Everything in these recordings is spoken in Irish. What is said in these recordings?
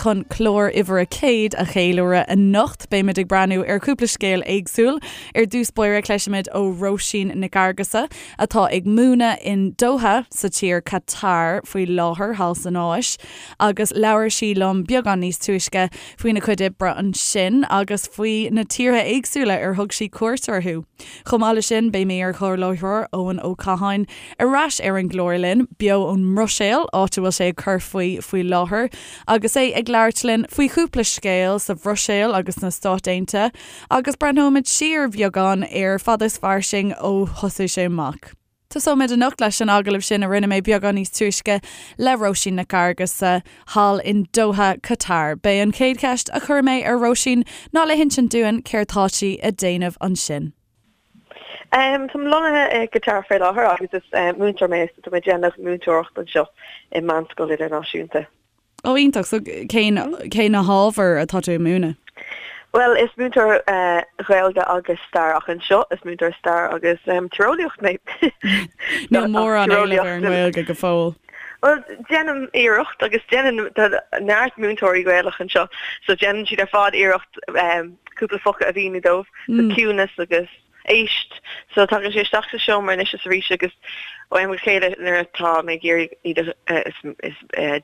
chun clár uimhir a 100 a cheiliúradh anocht. Beimid ag breathnú ar chúpla scéal éagsúil. Ar dtús báire cloisfimid ó Róisín Nic Fhearghusa atá ag múineadh in Doha sa tír Qatar faoi láthair thall san Áis agus labhair sí liom beagán níos túisce faoina cuid oibre ansin agus faoi na tíortha éagsúla ar thug sí cuairt orthu. Chomh maith leis sin, beidh m'iar-chomhláithreoir Eoin Ó Catháin ar ais ar an gclár linn, beo ón mBruiséil, áit a bhfuil sé ag cur faoi faoi láthair, agus é ag labhairt linn faoi chúpla scéal sa Bhruiséil agus sna Stáit Aontaithe, agus breathnóimid siar beagán ar Fada is Fairsing ó thosaigh sé amach. Tosóimid anocht leis an agallamh sin a rinne mé beagán níos túisce le Róisín Nic Fhearghusa thall in Doha, Qatar. B'é an chéad cheist a chuir mé ar Róisín ná le hinsint dúinn céard tá sí ag déanamh ansin. Táim lonnaithe i gCatar faoi láthair agus is múinteoir mé so tá mé ag déanamh múinteoireacht anseo i meánscoil idirnáisiúnta. Ó iontach, so cén cé na hábhair atá tú ag múineadh? Bhuel is múinteoir Gaeilge agus stair ach anseo is múinteoir stair agus tíreolaíocht mé. Níl mórán éileamh ar an nGaeilge go fóill. Bhuel déanaim iarracht agus déanann tá neart múinteoirí Gaelach anseo so déanann siad ar fad iarracht cúpla focal a mhíniú dóibh, so ciúnas agus éist. So tagann sé isteach sa seomra anois is arís agus ó am go chéile nuair atá mé ag iarraidh iad a, is, is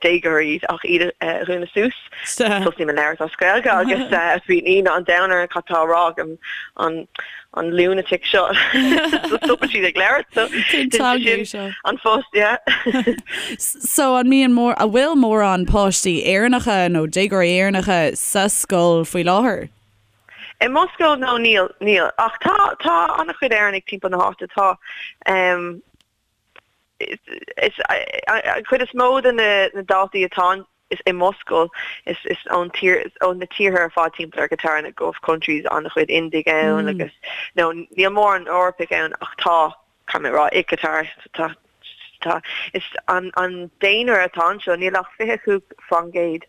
déagóirí iad ach iad a dhúnadh suas. Tosaím ag labhairt as Gaeilge agus bíonn ionadh an domhain orthu cad tá á rá ag an, an lunatic seo. So stopann siad ag labhairt. So Cén teanga é seo? An post, yeah. So an mbíonn mór, an bhfuil mórán páistí Éireannacha nó déagóirí Éireannacha sa scoil faoi láthair? I mo scoil, no, níl, níl. Ach tá, tá an-chuid Éireannaigh timpeall na háite. Tá, em, is, an chuid is mó de na, na daltaí atá is i mo scoil, is, is ón tír, ó na tíortha ar fad timpeall ar Qatar, na Gulf countries, an-chuid Indiaigh ann agus, no, níl mórán Eorpaigh ann ach tá. Caithfidh mé a rá, i Qatar, tá, tá, is an, an daonra atá anseo, níl ach 25%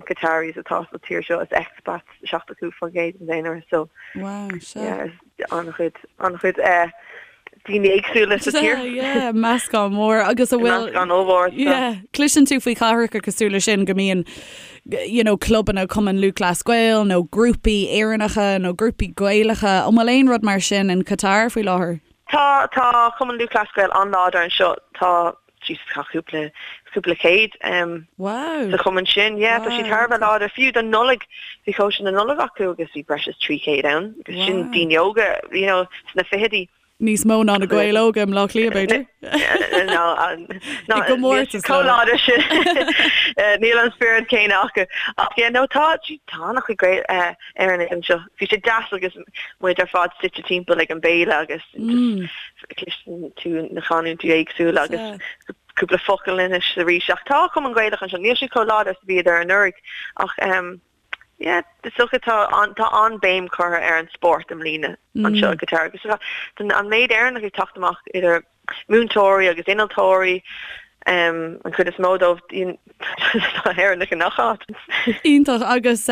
Qataris atá sa tír seo, is expats 75% den daonra, so, Wow, sea. yeah, is an-chuid, an-chuid eh, daoine éagsúla sa tír. Sea, yeah, meascán mór agus a bhfuil, Meascán ollmhór, so. yeah, cloiseann tú faoi chathracha cosúil leis sin go mbíonn, you know, clubanna Cumann Lúthchleas Gael nó grúpaí Éireannacha nó grúpaí Gaelacha, an bhfuil aon rud mar sin in Qatar faoi láthair? Tá, tá Cumann Lúthchleas Gael an-láidir anseo. Tá, Jesus, tá cúpla, cúpla céad um, Wow. sa chumann sin. Yeah, tá siad thar a bheith láidir. Fiú don Nollaig, bhí cóisir na Nollag acu agus bhí breis is 300 ann. Agus sin Wow. daoine óga, you know, sna fichidí. Níos mó ná na Gaeil óga i mBleá Cliath, b'fhéidir? No, no, I gcomórtas chomh leo. láidir sin. Níl an spiorad céanna acu. Ach yeah, no, tá, tá an-chuid Gael, eh, Éireannaigh anseo. Bhí sé deas agus muid ar fad suite timpeall ag an béile agus cloiseann tú na canúintí éagsúla agus cúpla focal anois arís. Ach tá Cumann Gaelach anseo, níl siad chomh láidir is a bhíodar anuraidh ach yeah, is dócha tá tá an-béim curtha ar an spórt i mbliana anseo i gCatar agus an méid Éireannach ag teacht amach idir múinteoirí agus innealtóirí, an chuid is mó dóibh, tá Éireannaigh i ngach áit. Iontach. Agus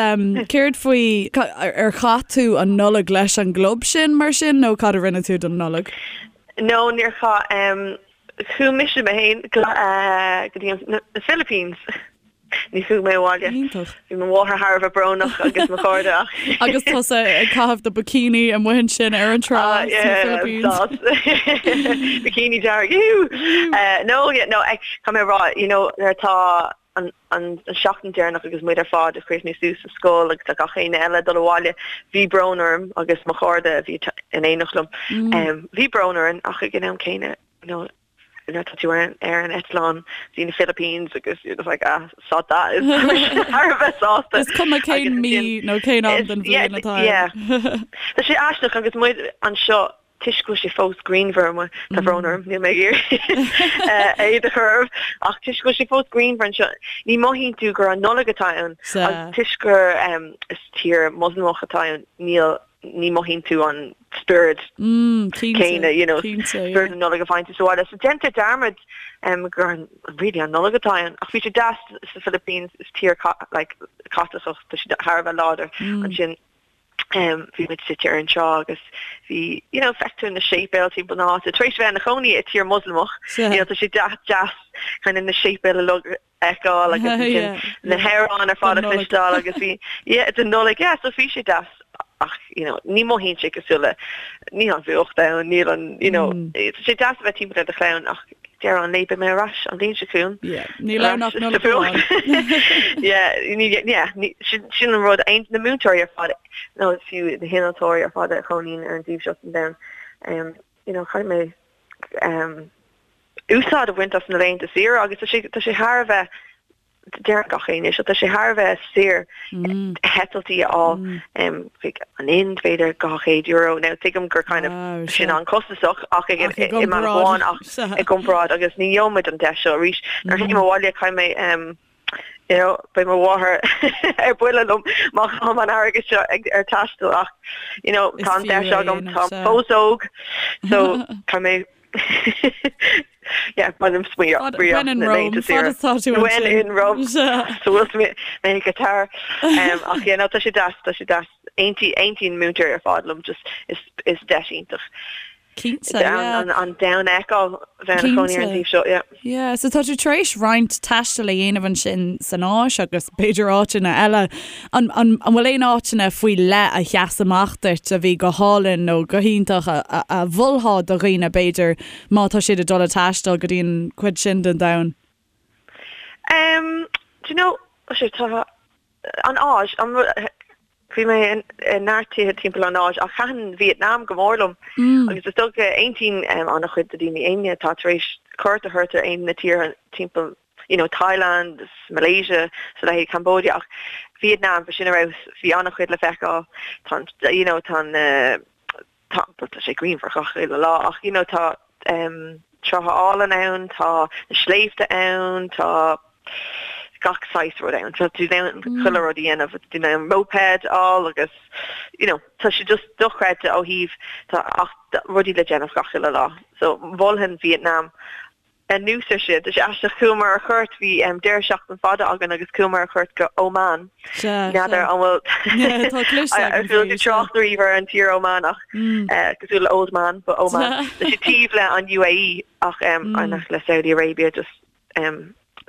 céard faoi, ar chaith tú an Nollaig leis an gclub sin mar sin nó cad a rinne tú don Nollaig? No, níor chaith. Chuaigh mise mé féin go dtí na Philippines. Ní chuaigh mé abhaile. Iontach. Bhí mo mháthair thar a bheith brónach agus mo chairde ach. Agus tusa ag caitheamh do bikini amuigh ansin ar an trá Ah, sna yeah, Philippines. sás. Bikini dearg, ew! Eh, no, yeah, no, eh, caithfidh mé a rá, you know, nuair atá an, an, an seachtain deireanach agus muid ar fad ag críochnú suas sa scoil agus tá gach éinne eile ag dul abhaile, bhí brón orm agus mo chairde a bhí in éineacht liom, em, bhí brón orainn ach ag an am céanna, you know, nuair atá tú ar ar an eitleán go dtí na Philippines agus you're just like ah sod that is thar a bheith sásta. Is cuma cén mí nó cén am den bhliain atá ann. Tá sé aisteach agus muid anseo toisc go bhfuil sé fós grianmhar amuigh, tá brón orm, níl mé ag iarraidh éad a chur oraibh, ach toisc go bhfuil sé fós grianmhar anseo, ní mothaíonn tú gur an Nollaig atá ann agus toisc gur is tír Moslamach atá ann, níl ní mothaíonn tú an spiorad céanna, you know, spiorad na Nollag a bhaint sa bhaile. So déantar dearmad gur really an Nollaig atá ann. Ach bhí sé deas sa Philippines, is tír like Caitliceach, tá siad thar a bheith láidir ansin. Bhí muid suite ar an trá agus bhí, you know, feictear na séipéil timpeall na háite. Tar éis bheith ina chónaí i tír Moslamach, you know, tá sé deas deas kind of na séipéil uilig a fheiceáil agus ansin na hamhráin ar fad a chloisteáil agus bhí, yeah, don Nollaig, yeah, so bhí sé deas ach, you know, ní mothaíonn sé cosúil le, níl an fuacht ann, níl an, you know, tá sé deas a bheith timpeall ar do chlann ach deireadh an lae beidh mé ar ais an bhliain seo chugainn. Yeah, níl ann ach Nollaig amháin. Yeah, yeah, sin an rud, na múinteoirí ar fad, nó fiú na hinnealtóirí ar fad a chónaíonn ar an dtaobh seo den domhan, um, you know, caithfidh mé um, úsáid a bhaint as na laethanta saoire agus tá sé, tá sé thar a bheith Deireann gach éinne seo, tá sé thar a bheith saor heitiltí a fháil chuig an Ind, b'fhéidir €200. Now tuigim gur kind of sin an-chostasach ach i mbealach amháin ach i gcomparáid agus ní gheobhaimid an deis seo arís. Nuair a théim abhaile caithfidh mé you know beidh mo mháthair ar buile liom má chaithim an airgead seo ar taisteal ach you know tá an deis agam, táim fós óg so caithfidh mé Yeah, bainim smaoineamh When in Rome, fad is tá tú When in Rome. So bhfuil mé i Qatar. Ach yeah, no, tá sé deas, tá sé deas. Aontaíonn múinteoirí ar fad liom, just is is deis iontach. Cinnte, yeah. An domhan a fheiceáil bheith ina chónaí ar an taobh seo, yeah. Yeah, so tá tú tar éis roinnt taistil a dhéanamh ansin san Áis agus b'fhéidir áiteanna eile. An, an, an bhfuil aon áiteanna faoi leith a sheas amach duit a bhí go hálainn nó go hiontach a, a, a mholfá do dhaoine b'fhéidir má tá siad ag dul ag taisteal go dtí an chuid sin den domhan? Um, do you know, sé, tá an Áis, an, bhí mé i neart tíortha timpeall an Áis ach thaitin Vietnam go mór liom agus is dócha aontaíonn an-chuid de daoine éinne atá tar éis cuairt a thabhairt ar aon na tíortha timpeall you know Thailand is Malaysia is a leithéid Cambodia ach Vietnam bhí sin ar fheabhas bhí an-chuid le feiceáil tá an you know tá an tá tá sé grianmhar gach uile lá ach you know tá um, trátha álainn ann tá na sléibhte ann tá gach saghas rud ann tá tú in ann chuile rud a dhéanamh tú in ann moped a fháil agus you know tá sé just dochreidte ó thaobh tá ach rudaí le déanamh gach uile lá so mholfainn Vietnam Anuas ar sin, tá sé aisteach, chuamar ar chuairt, bhí deireadh seachtain fada againn agus chuamar ar chuairt go Oman. N'fheadar an bhfuil Tá cloiste agam faoi, tú trácht riamh ar an tír Oman ach cosúil le old man, but Oman. Tá sé taobh le an UAE ach ach le Saudi Arabia just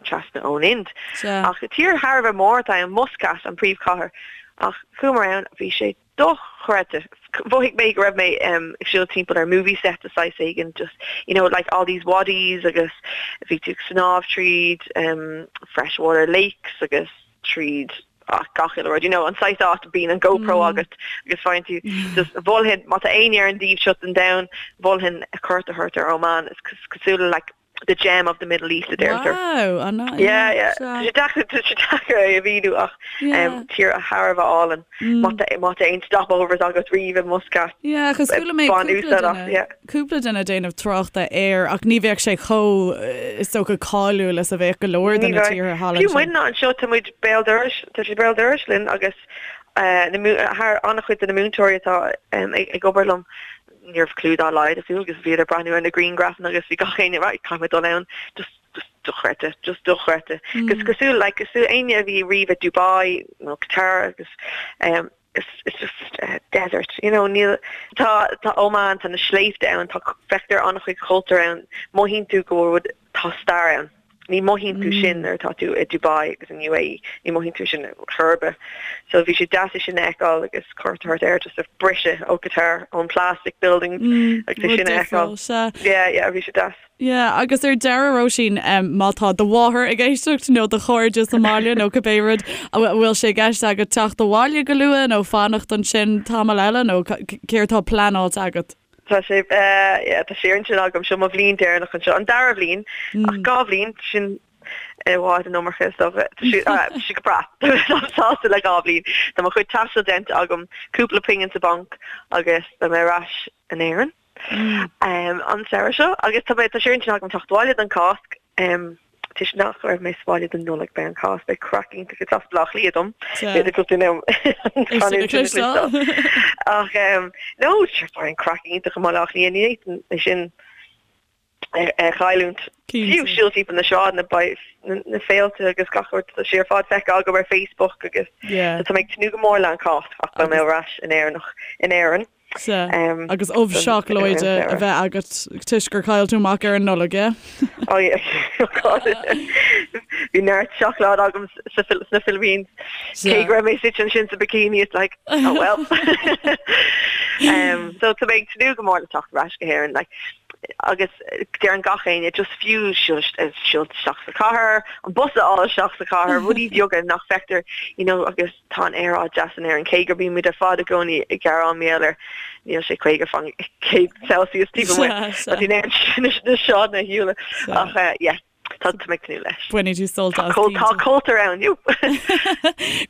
trasna ón Ind. Ach tír thar a bheith mór atá ann, Muscat an príomhchathair. Ach chuamar ann, bhí sé dochreidte. Mhothaigh mé go raibh mé ag siúl timpeall ar movie set de saghas éigin, just, you know, like all these wadis agus bhí tú ag snámh tríd freshwater lakes agus tríd gach uile rud, you know, an saghas áit a bíonn an GoPro agat agus faigheann tú just mholfainn, má tá éinne ar an dtaobh seo den domhan, mholfainn cuairt a thabhairt ar Oman, is cosúil le like the gem of the Middle East a deirtear. Wow, an yeah. Yeah, yeah. Tá sé deacair tá sé deacair é a mhíniú ach um, tír thar a bheith álainn. Má tá má tá aon stopovers agat riamh i Muscat. Yeah, agus chuala mé Bain cúpla úsáid as, duine yeah. cúpla duine ag déanamh tráchta air ach ní bheadh sé chomh is dócha cáiliúil is a bheadh go leor de Ní na bheadh. tíortha thall Fiú ansin. muidne anseo tá muid béal dorais, tá sé béal dorais linn agus uh, na mú- thar an-chuid de na múinteoirí atá um, ag, ag obair liom ní raibh clue dá laghad acu agus bhíodar ag breathnú ar na grianghrafanna agus bhí gach éinne right caithfidh mé dul ann just just dochreidte just dochreidte agus cosúil like cosúil éinne a bhí riamh i Dubai nó Qatar agus um, it's, it's just uh, desert you know níl tá tá Oman tá na sléibhte ann tá feictear an-chuid cultúr ann mothaíonn tú go bhfuil tá stair ann. Ní mothaíonn tú sin nuair atá tú i Dubai agus in UAE, ní mothaíonn tú sin chor ar bith. So bhí sé deas é sin a fheiceáil agus cuairt a thabhairt air just a briseadh ó Qatar, ón plastic buildings agus é sin a fheiceáil. Yeah, yeah, bhí sé deas. Yeah, agus ar deireadh Róisín, má tá do mháthair ag éisteacht nó do chairde sa mbaile nó cibé rud, an bhfuil sé i gceist agat teacht abhaile go luath nó fanacht ansin tamall eile nó céard atá pleanáilte agat? Tá sé, yeah, tá sé ar intinn agam, seo mo bhliain deireanach anseo, an dara bhliain, ach 2 bhliain, sin i bhfad an iomarca is dócha. Tá sé, tá sé go breá, táim sásta le 2 bhliain. Tá mo chuid taistil déanta agam, cúpla pingin sa bhanc agus beidh mé ar ais in Éirinn an samhradh seo agus tá mé, tá sé ar intinn agam teacht abhaile don Cháisc. Toisc nach raibh mé sa bhaile don Nollaig beidh an Cháisc, beidh craic iontach is as Baile Átha Cliath dom. B'fhéidir go bhfuil an canúint sin le cloisteáil. Ach no, sure beidh an craic iontach i mBaile Átha Cliath, ní fhéadfainn é sin. A chailliúint. Fiú siúl timpeall na sráideanna beidh na féilte agus gach rud tá sé ar fad feicthe agam ar Facebook agus tá mé ag tnúth go mór le an Cháisc ach beidh mé ar ais in Éireannach in Éirinn. Sea, agus ubh seacláide a bheith agat toisc gur chaill tú amach ar an Nollaig, yeah? Oh yeah, oh God. Bhí neart seacláid agam sna Philippines. Cé go raibh mé suite ansin sa bikini, it's like, oh well. So tá mé ag tnúth go mór le teacht ar ais go hÉirinn. Like, agus deireann gach éinne just fiú siúl isteach sa chathair, an bus a fháil isteach sa chathair, rudaí beaga nach bhfeictear, you know, agus tá an aeráid deas in Éirinn, cé gur bímid ar fad i gcónaí ag gearán mar gheall air, níl sé 50 faoin gcéad Celsius taobh amuigh, tá tú in ann na sráideanna a shiúl ach yeah. Tá mé ag tnúth leis. Bainfidh tú sult as. Tá cultúr ann, you.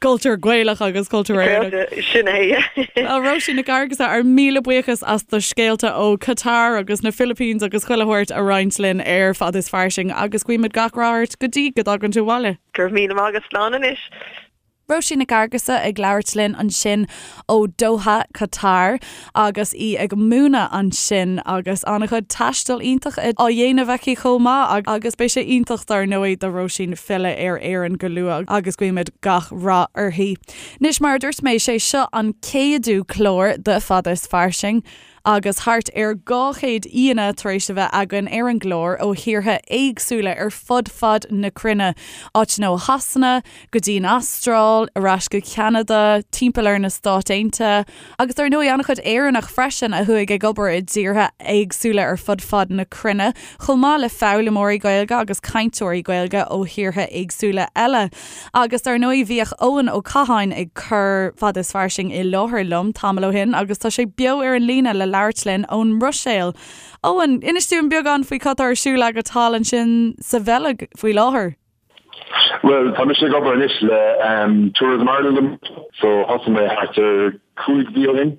Cultúr Gaelach agus cultúr Éireannach. Sin é. Well, Róisín Nic Fhearghusa, ár míle buíochas as do scéalta ó Qatar agus na Philippines agus chuile shórt a roinnt linn ar Fad is Fairsing agus guímid gach rath ort go dtí go dtagann tú abhaile. Go raibh míle maith agat, slán anois. Róisín Nic Fhearghusa ag labhairt linn ansin ó Doha, Qatar agus í ag múineadh ansin agus an-chuid taistil iontach á dhéanamh aici chomh maith agus beidh sé iontach dar ndóigh do Róisín filleadh ar Éirinn go luath agus guímid gach rath uirthi. Anois mar a dúirt mé, sé seo an céadú clár de Fad is Fairsing. Agus thart ar 200 aíonna tar éis a bheith againn ar an gclár ó thíortha éagsúla ar fud fad na cruinne, áiteanna ó Shasana go dtí an Astráil, ar ais go Ceanada, timpeall ar na Stáit Aontaithe, agus dar ndóigh an-chuid Éireannach freisin a chuaigh ag obair i dtíortha éagsúla ar fud fad na cruinne, chomh maith le foghlaimeoirí Gaeilge agus cainteoirí Gaeilge ó thíortha éagsúla eile. Agus dar ndóigh bhíodh Eoin Ó Catháin ag cur Fad is Fairsing i láthair liom tamall ó shin agus tá sé beo ar an líne le labhairt linn ón mBruiséil. Eoin, inis dúinn beagán faoi cad tá ar siúl agat thall ansin sa Bheilg faoi láthair. Bhuel, tá mise ag obair anois le Tourism Ireland so thosaigh mé thart ar 5 mhí ó shin.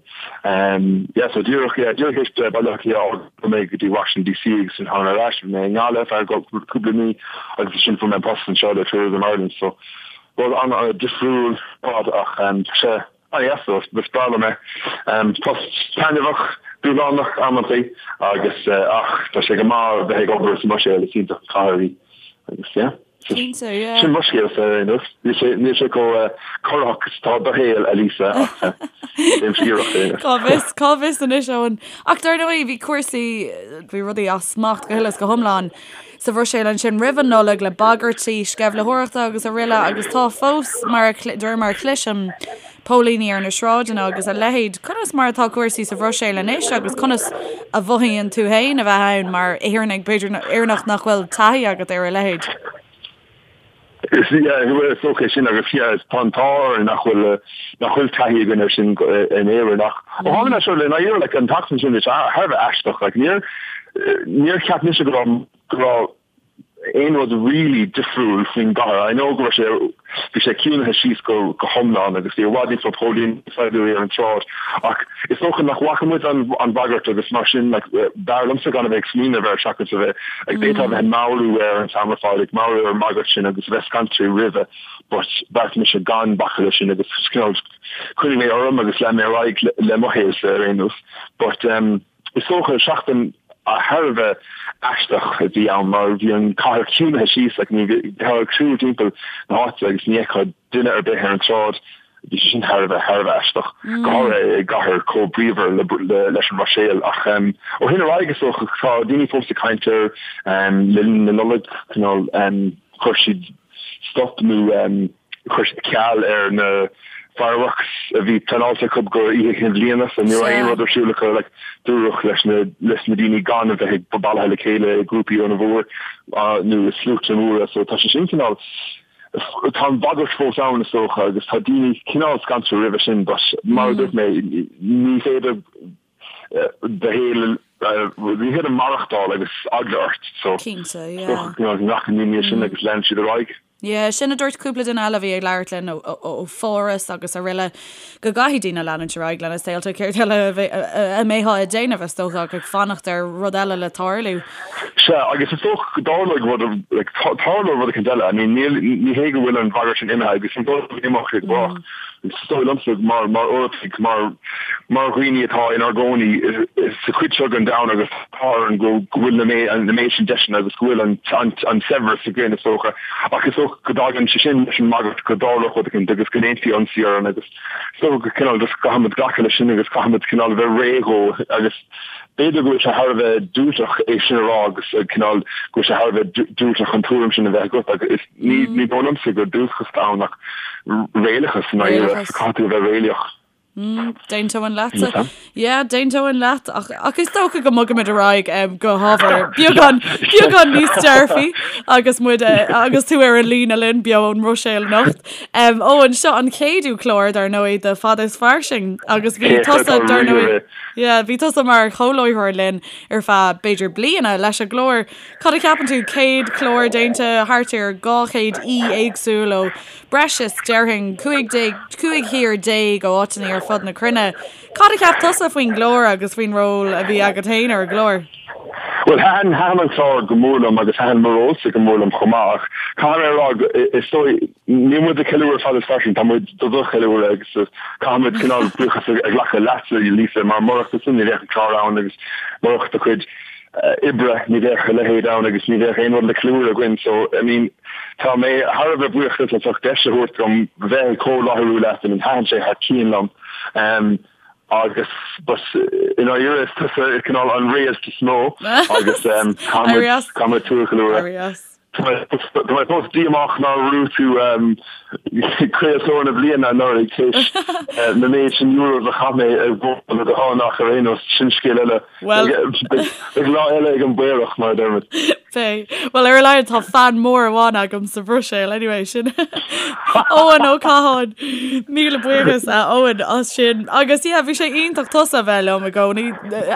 Yeah, so díreach, yeah, díreach théis Baile Átha Cliath a fhágáil chuaigh mé go dtí Washington DC agus ansin tháinig mé ar ais, bhí mé i nGaillimh ar feadh cúpla mí agus ansin fuair mé an post anseo le Tourism Ireland so rud an-difriúil ar fad ach tá sé an-deas so is breá liom é. Post taitneamhach, dúshlánach amantaí agus ach tá sé go maith bheith ag obair sa mBruiséil, is iontach an chathair í agus yeah. Cinnte, yeah. Sin mo scéalsa ar aon nós. Níl sé, níl sé chomh corraitheach is atá do shaol, a Lisa, ach déanaimse iarracht ar aon nós. Cá bhfios, cá bhfios anois, Eoin. Ach dar ndóigh, bhí cúrsaí, bhí rudaí as smacht go huile is go hiomlán sa Bhruiséil ansin roimh an Nollaig le bagairtí sceimhlitheoireachta agus araile agus tá fós, mar a, de réir mar a chloisim, póilíní ar na sráideanna agus a leithéid. Conas mar atá cúrsaí sa Bhruiséil anois agus conas a mhothaíonn tú féin a bheith ann mar Éireannach, b'fhéidir Éireannach nach bhfuil taithí agat ar a leithéid? Is is dócha é sin agus yeah tá an t-ádh orainn nach bhfuil nach bhfuil taithí againn ar sin in Éirinn ach ó tháinig mé seo le ndáiríre like an tseachtain sin thar a bheith aisteach like níor níor cheap mise go raibh go raibh aon rud really difriúil faoin gcathair. I know go raibh sé, bhí sé ciúnaithe síos go go hiomlán agus bhí i bhfad níos mó póilíní saighdiúirí ar an tsráid ach is dócha nach bhfaca muid an an bhagairt agus mar sin like b'fhearr liomsa gan a bheith ag smaoineamh air seachas a bheith like d'fhéadfá a bheith ag meabhrú air an t-am ar fad ag meabhrú ar an mbagairt sin agus a bheith scanraithe roimhe but bheartaigh mise gan bacadh leis sin agus cineál choinnigh mé orm agus lean mé ar aghaidh le le mo shaolsa ar aon nós but um Is dócha, seachtain thar a bheith aisteach a bhí ann mar bhí an cathair ciúnaithe síos, like ní bheifeá ag siúl timpeall na háite agus ní fheicfeá duine ar bith ar an tsráid. Bhí sé sin thar a bheith, thar a bheith aisteach, go háirithe i gcathair chomh bríomhar le, leis an mBruiséil. Ach ó shin ar aghaidh is dócha tá daoine fós ag caint air le linn na Nollag, cineál chuir siad stop nó Chuir siad ceal ar na fireworks a bhí pleanáilte acu go Oíche Chinn Bhliana so ní raibh aon rud ar siúl acu like dúradh leis na leis na daoine gan a bheith ag bailithe le chéile i grúpaí an-mhór nó i sluaite móra so tá sé sin cineál tá an bhagairt fós ann is dócha agus tá daoine cineál scanraithe roimhe sin but mar a dúirt mé ní féidir do shaol ní féidir maireachtáil agus eagla ort so Cinnte, yeah. is dócha go nglacann daoine leis sin agus leanann siad ar aghaidh. Yeah, sin a dúirt cúpla duine eile a bhí ag labhairt linn ó Pháras agus araile, go gcaithfidh daoine leanúint ar aghaidh lena saolta, céard eile a mbeifeá ag déanamh, is dócha, ach ag fanacht ar rud eile le tarlú. Sea, agus is dócha go dtarlóidh rud, like, tarlóidh rud eicínt eile. I mean, níl, ní hé go bhfuil an bhagairt sin imithe agus ní dóigh liom go n-imeoidh sé go brách. Is dóigh liomsa, mar Eorpaigh, mar mar dhaoine atá inár gcónaí sa chuid seo den domhan agus tá orainn go bhfuil na méid sin deiseanna agus go bhfuil an saibhreas againn, is dócha. Ach is dócha go dtagann sé sin leis an mbagairt go dtarlódh rud éicint agus go ndéanfaí ionsaí orainn agus is dócha go cineál just caithfimid glacadh leis sin agus caithfimid cineál a bheith réidh dhó agus b'fhéidir go bhfuil sé thar a bheith diúltach é sin a rá agus cineál go bhfuil sé thar a bheith diúltach an tuairim sin a bheith agat agus ní ní dóigh liomsa gur diúltachas atá ann ach réalachas i ndáiríre, so caithfidh tú a bheith réalaíoch. Mm, D'aontóinn leatsa. Yeah, d'aontóinn leat ach, ach is dócha go mbogaimid ar aghaidh um, go hábhar beagán beagán níos dearfaí agus muid eh, agus tú ar an líne linn beo ón mBruiséil anocht. Um, Eoin, seo an céadú clár dar ndóigh de Fada is Fairsing agus bhí tusa dar ndóigh yeah, bhí tusa mar chomhláithreoir linn ar feadh b'fhéidir bliana leis an gclár. Cad a cheapann tú, 100 clár déanta, thart ar 200 aoi éagsúil ó breis is, déarfainn, 15, 15 thír ó áiteanna ar fud na cruinne. Cad a cheap tusa faoin gclár agus faoin ról a bhí agat féin ar an gclár? Bhuel, thaitin, thaitin an clár go mór liom agus thaitin mo rólsa go mór liom chomh maith ach caithfidh mé a rá, is dóigh, níl muid ag ceiliúradh Fada is Fairsing, tá muid do do cheiliúradh agus caithfidh muid cineál buíochas a ghlacadh leatsa, Lisa, mar murach tusa ní bheadh an clár ann agus murach do chuid oibre, ní bheadh a leithéid ann agus ní bheadh aon rud le ceiliúradh againn so I mean tá mé thar a bheith buíoch duit as ucht deis a thabhairt dom bheith ag comhláithriú leat, I mean thaitin sé thar cionn liom um, agus but i ndáiríre is tusa cineál an réalt is mó agus um, caithfidh muid tú a cheiliúradh. Tá mé fós díomách nár bhuaigh tú Craoltóir na Bliana anuraidh tar éis na méid sin euros a chaith mé ar bhord do thon ach ar aon nós, sin scéal eile. Beidh lá eile ag an bPaorach, mar a deirimid. Beidh. Bhuel, ar a laghad tá fan mór amháin agam sa Bhruiséil anyway, sin Eoin Ó Catháin. Míle buíochas a Eoin as sin. Agus yeah, bhí sé iontach tusa a bheith liom i gcónaí.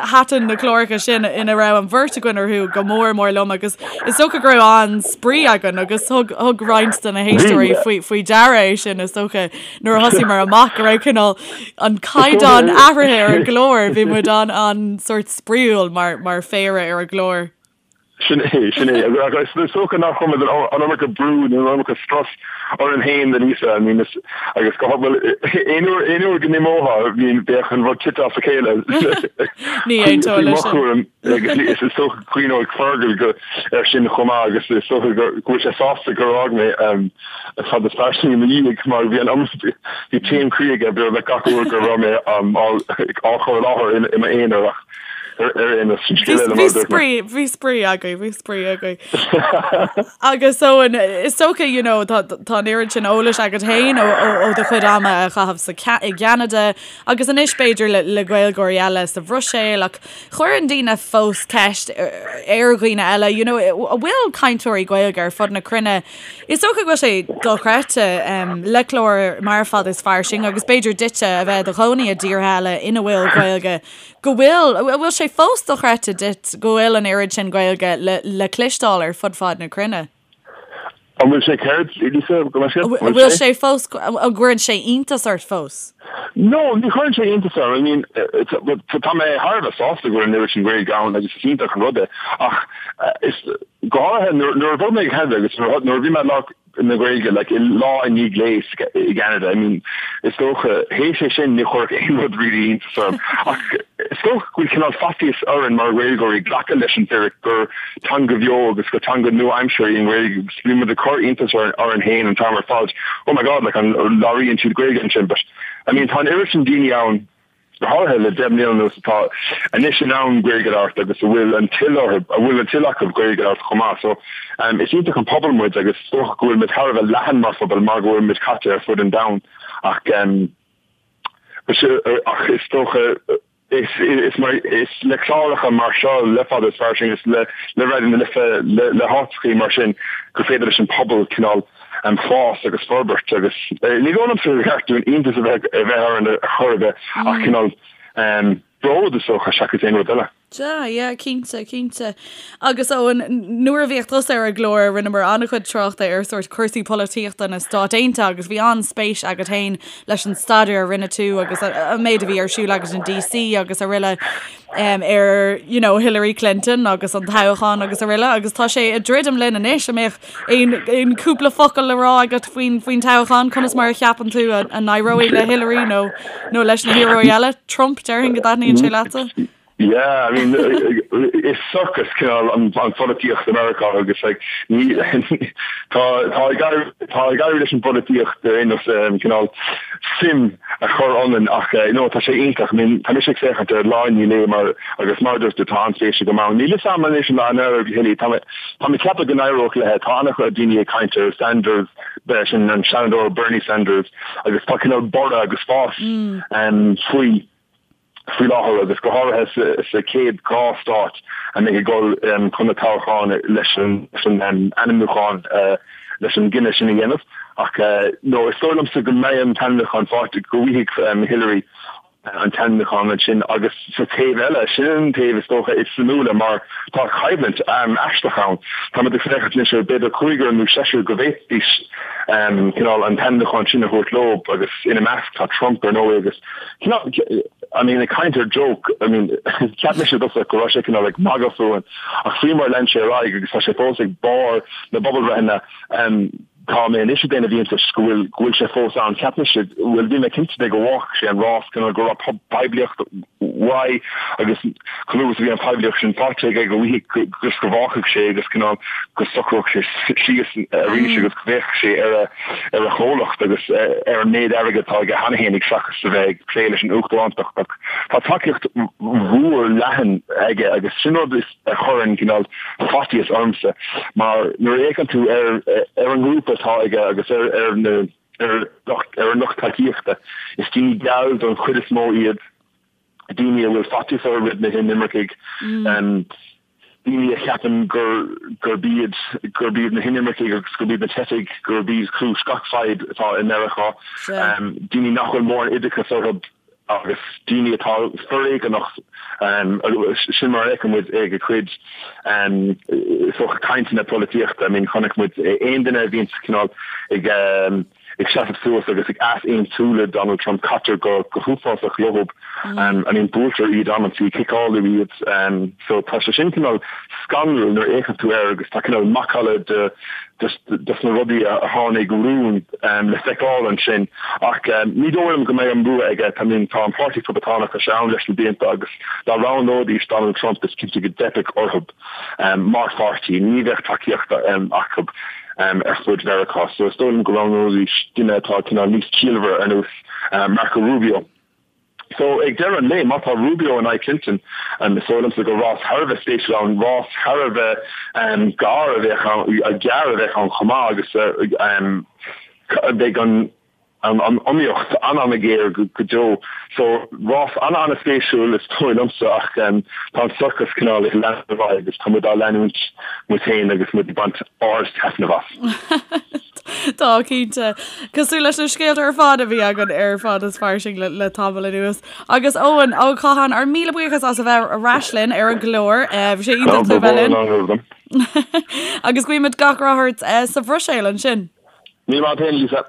Thaitin na cláracha sin ina raibh an bheirt againn orthu go mór mór liom agus Is dócha go raibh an-spraoi againn agus thug thug roinnt de na héisteoirí faoi faoi deara é sin is dócha nuair a thosaíomar amach go raibh cineál an caighdeán athraithe ar an gclár, bhí muid an an sórt spraíúil mar mar phéire ar an gclár. Sin é, sin é. Agus is dócha nár chuir muid an iomarca brú nó an iomarca strus orainn féin, a Lisa, I mean, is, agus go bhfuil aon uair aon uair go n-imeofá bhíonn bheadh an rud tite as a chéile. Ní aontóinn leis sin. Agus is dócha go gcuimhneoidh Fergal go ar sin chomh maith agus is dócha go bhfuil sé sásta gur fhág mé Fada is Fairsing i mo dhiaidh mar bhí an bhí taom croí aige beagnach gach uair go raibh mé á chur i láthair i m'aonar ach ar aon nós sin scéal eile mar a dúirt mé. Bhí spraoi agaibh, bhí spraoi agaibh. Agus Eoin, is dócha you know tá tá an oiread sin eolais agat féin ó ó do chuid ama a chaitheamh sa i gCeanada agus anois b'fhéidir le le Gaeilgeoirí eile sa Bhruiséil ach Cuireann daoine fós ceist ar dhaoine eile, you know, an bhfuil cainteoirí Gaeilge ar fud na cruinne. Is dócha go bhfuil sé dochreidte le clár mar Fada is Fairsing agus b'fhéidir duitse a bheith i do chónaí i dtíortha eile ina bhfuil Gaeilge, go bhfuil, an bhfuil sé fós dochreidte duit go bhfuil an oiread sin Gaeilge le le cloisteáil ar fud fad na cruinne? An bhfuil sé céard, Lisa, go mbeidh sé? An bhfuil sé fós, an gcuireann sé iontas ort fós? No, ní chuireann sé iontas orm. I mean, tá mé thar a bheith sásta go bhfuil an oiread sin Gaeilge ann agus is iontach an rud é. Ach is, go háirithe nuair a bhog mé go Ceanada agus nuair a bhí mé ag labhairt na Gaeilge, like, lá i ndiaidh lae i gCeanada, I mean, is dócha, théis é sin ní chuirfeadh aon rud really iontas orm. Ach is dócha go bhfuil cineál faitíos orainn mar Ghaeilgeoirí glacadh leis an bhfíric gur teanga bheo agus gur teanga nua-aimseartha í an Ghaeilge agus bíonn muid ag cur iontais orainn féin an t-am ar fad, oh my God, like an labhraíonn siad Gaeilge ansin but I mean tá an oiread sin daoine ann, go háirithe le 10 mbliana anuas atá anois in ann Gaeilge a labhairt agus a bhfuil an toil orthu, a bhfuil an toil acu Gaeilge a labhairt chomh maith so um is iontach an pobal muid agus is dócha go bhfuil muid thar a bheith leathan mar phobal mar go bhfuil muid caite ar fud an domhain ach um ach is dócha Is is le cláracha mar seo, le Fada is Fairsing, is le le Raidió na Life, le le háiteachaí mar sin gur féidir leis an pobal cineál fás agus forbairt agus ní dóigh liomsa gur cheart dúinn iontas a bheith a bheith orainn ar chor ar bith ach cineál bród is dócha seachas aon rud eile. Sea, yeah, cinnte, cinnte. Agus Eoin, nuair a bhíodh tusa ar an gclár, rinneamar an-chuid tráchta ar sórt cúrsaí polaitíochta na Stát Aontaithe agus bhí an-spéis agat féin leis an staidéar a rinne tú agus an méid a bhí ar siúl agat in DC agus araile ar, you know, Hillary Clinton agus an toghchán agus araile agus tá sé ag druidim linn anois, an mbeadh aon, aon cúpla focal le rá agat faoin, faoin toghchán, conas mar a cheapann tú a, a n-éireoidh le Hillary nó, nó leis na hiarrthóirí eile? Trump, déarfainn go dtaitníonn sé leatsa? Yeah, I mean, is circus cineál an pholaitíocht i Meiriceá agus like, ní, tá, tá ag éirí, tá ag éirí leis an bpolaitíocht ar aon nós cineál suim a chur ionainn ach eh, no, tá sé iontach. I mean, tá mise ag féachaint ar lá i ndiaidh lae mar agus mar a dúirt tú tá an-spéis agam ann. Níl fhios a'm anois an éireoidh le Hillary, tá mé, tá mé ag ceapadh go n-éireodh léi. Tá an-chuid daoine ag caint ar Sanders, sin an Seanadóir Bernie Sanders agus tá cineál borradh agus fás faoi. faoi láthair agus go háirithe sa chéad 2 stát a mbeidh ag dul chun na toghcháin leis an ainmniúchán leis an gcinneadh sin a dhéanamh. Ach no, is dóigh liomsa go mbeidh an t-ainmniúchán faighte, go bhfaighidh Hillary an t-ainmniúchán ansin agus sa taobh eile, sin an taobh is dócha is suimiúla mar tá coimhlint aisteach ann. Táimid ag féachaint anois ar b'fhéidir cúigear nó seisear go bhféadfaidís cineál an t-ainmniúchán sin a thabhairt leo agus ina measc tá Trump ar ndóigh agus Cineál, I mean, ag caint ar joke, I mean, cheap mise i dtosach go raibh sé cineál ag magadh fúinn, ach faoi mar a lean sé ar aghaidh agus tá sé fós ag barr na bpobalbhreitheanna, tá mé anois ag déanamh iontais go bhfuil, go bhfuil sé fós ann. Cheap mise, bhuel, bhí mé cinnte de go bhfágfadh sé an rás, cineál go raibh poiblíocht uaidh agus chomh luath is a bhí an phoiblíocht sin faighte aige go bhfaighfeadh, just go bhfágfadh sé agus cineál go socródh sé síos arís agus go bhféachfadh sé ar a ar a chomhlacht agus ar an méid airgid atá aige cheana fhéinig seachas a bheith ag plé leis an uachtarántacht ach tá tacaíocht mhór leathan aige agus sin rud a chuireann cineál faitíos ormsa mar nuair a fhéachann tú ar ar an ngrúpa atá aige agus ar ar na ar ar an lucht tacaíochta is daoine geal don chuid is mó iad daoine a bhfuil faitíos orthu roimh na hinimircigh. daoine a cheapann gur gurb iad gurb iad na hinimircigh agus gurb iad na teifigh gurb iad cúis gach fadhb atá i Meiriceá, daoine nach bhfuil mórán oideachas orthu agus daoine atá foréigeanach, sin mar a fheiceann muid ag a chuid is dócha cainteanna polaitíochta. I mean chonaic muid aon duine a bhíonn cineál ag ag seasamh suas agus ag easaontú le Donald Trump, caitear go huafásach leo. I mean, buailtear iad amantaí, ciceáladh iad. So tá sé sin cineál scanrúil nuair a fhéachann tú air agus tá cineál macalla de dos na rudaí a tháinig rún le feiceáil ansin. Ach ní dóigh liom go mbeidh an bua aige. I mean, tá an Páirtí Poblachtánach, tá sé ann leis na blianta agus dá roghnóidís Donald Trump is cinnte go dteipfeadh orthu. Mar pháirtí, ní bheadh tacaíocht acu ar fud Mheiriceá, so is dóigh liom go roghnóidís duine atá cineál níos ciallmhaire ar nós Marco Rubio. So ag deireadh an lae, má tá Rubio in aghaidh Clinton, is dóigh liomsa gur rás thar a bheith spéisiúil ann, rás thar a bheith gar a bheadh ann, gearr a bheadh ann chomh maith agus beidh an an iomaíocht an-an-ghéar go deo. So, rás an-an-spéisiúil is dóigh liomsa ach tá an sorcas cineál ag leanúint ar aghaidh agus tá muid á leanúint muid féin agus muid ag baint ard-taitneamh as. Tá, cinnte. Cosúil leis na scéalta ar fad a bhí againn ar Fad is Fairsing le, le tamall anuas. Agus Eoin Ó Catháin, ár míle buíochas as a bheith ar ais linn ar an gclár. Bhí sé iontach tú a bheith linn. Agus guímid gach rath ort sa Bhruiséil ansin. Míle maith agat féin, Lisa.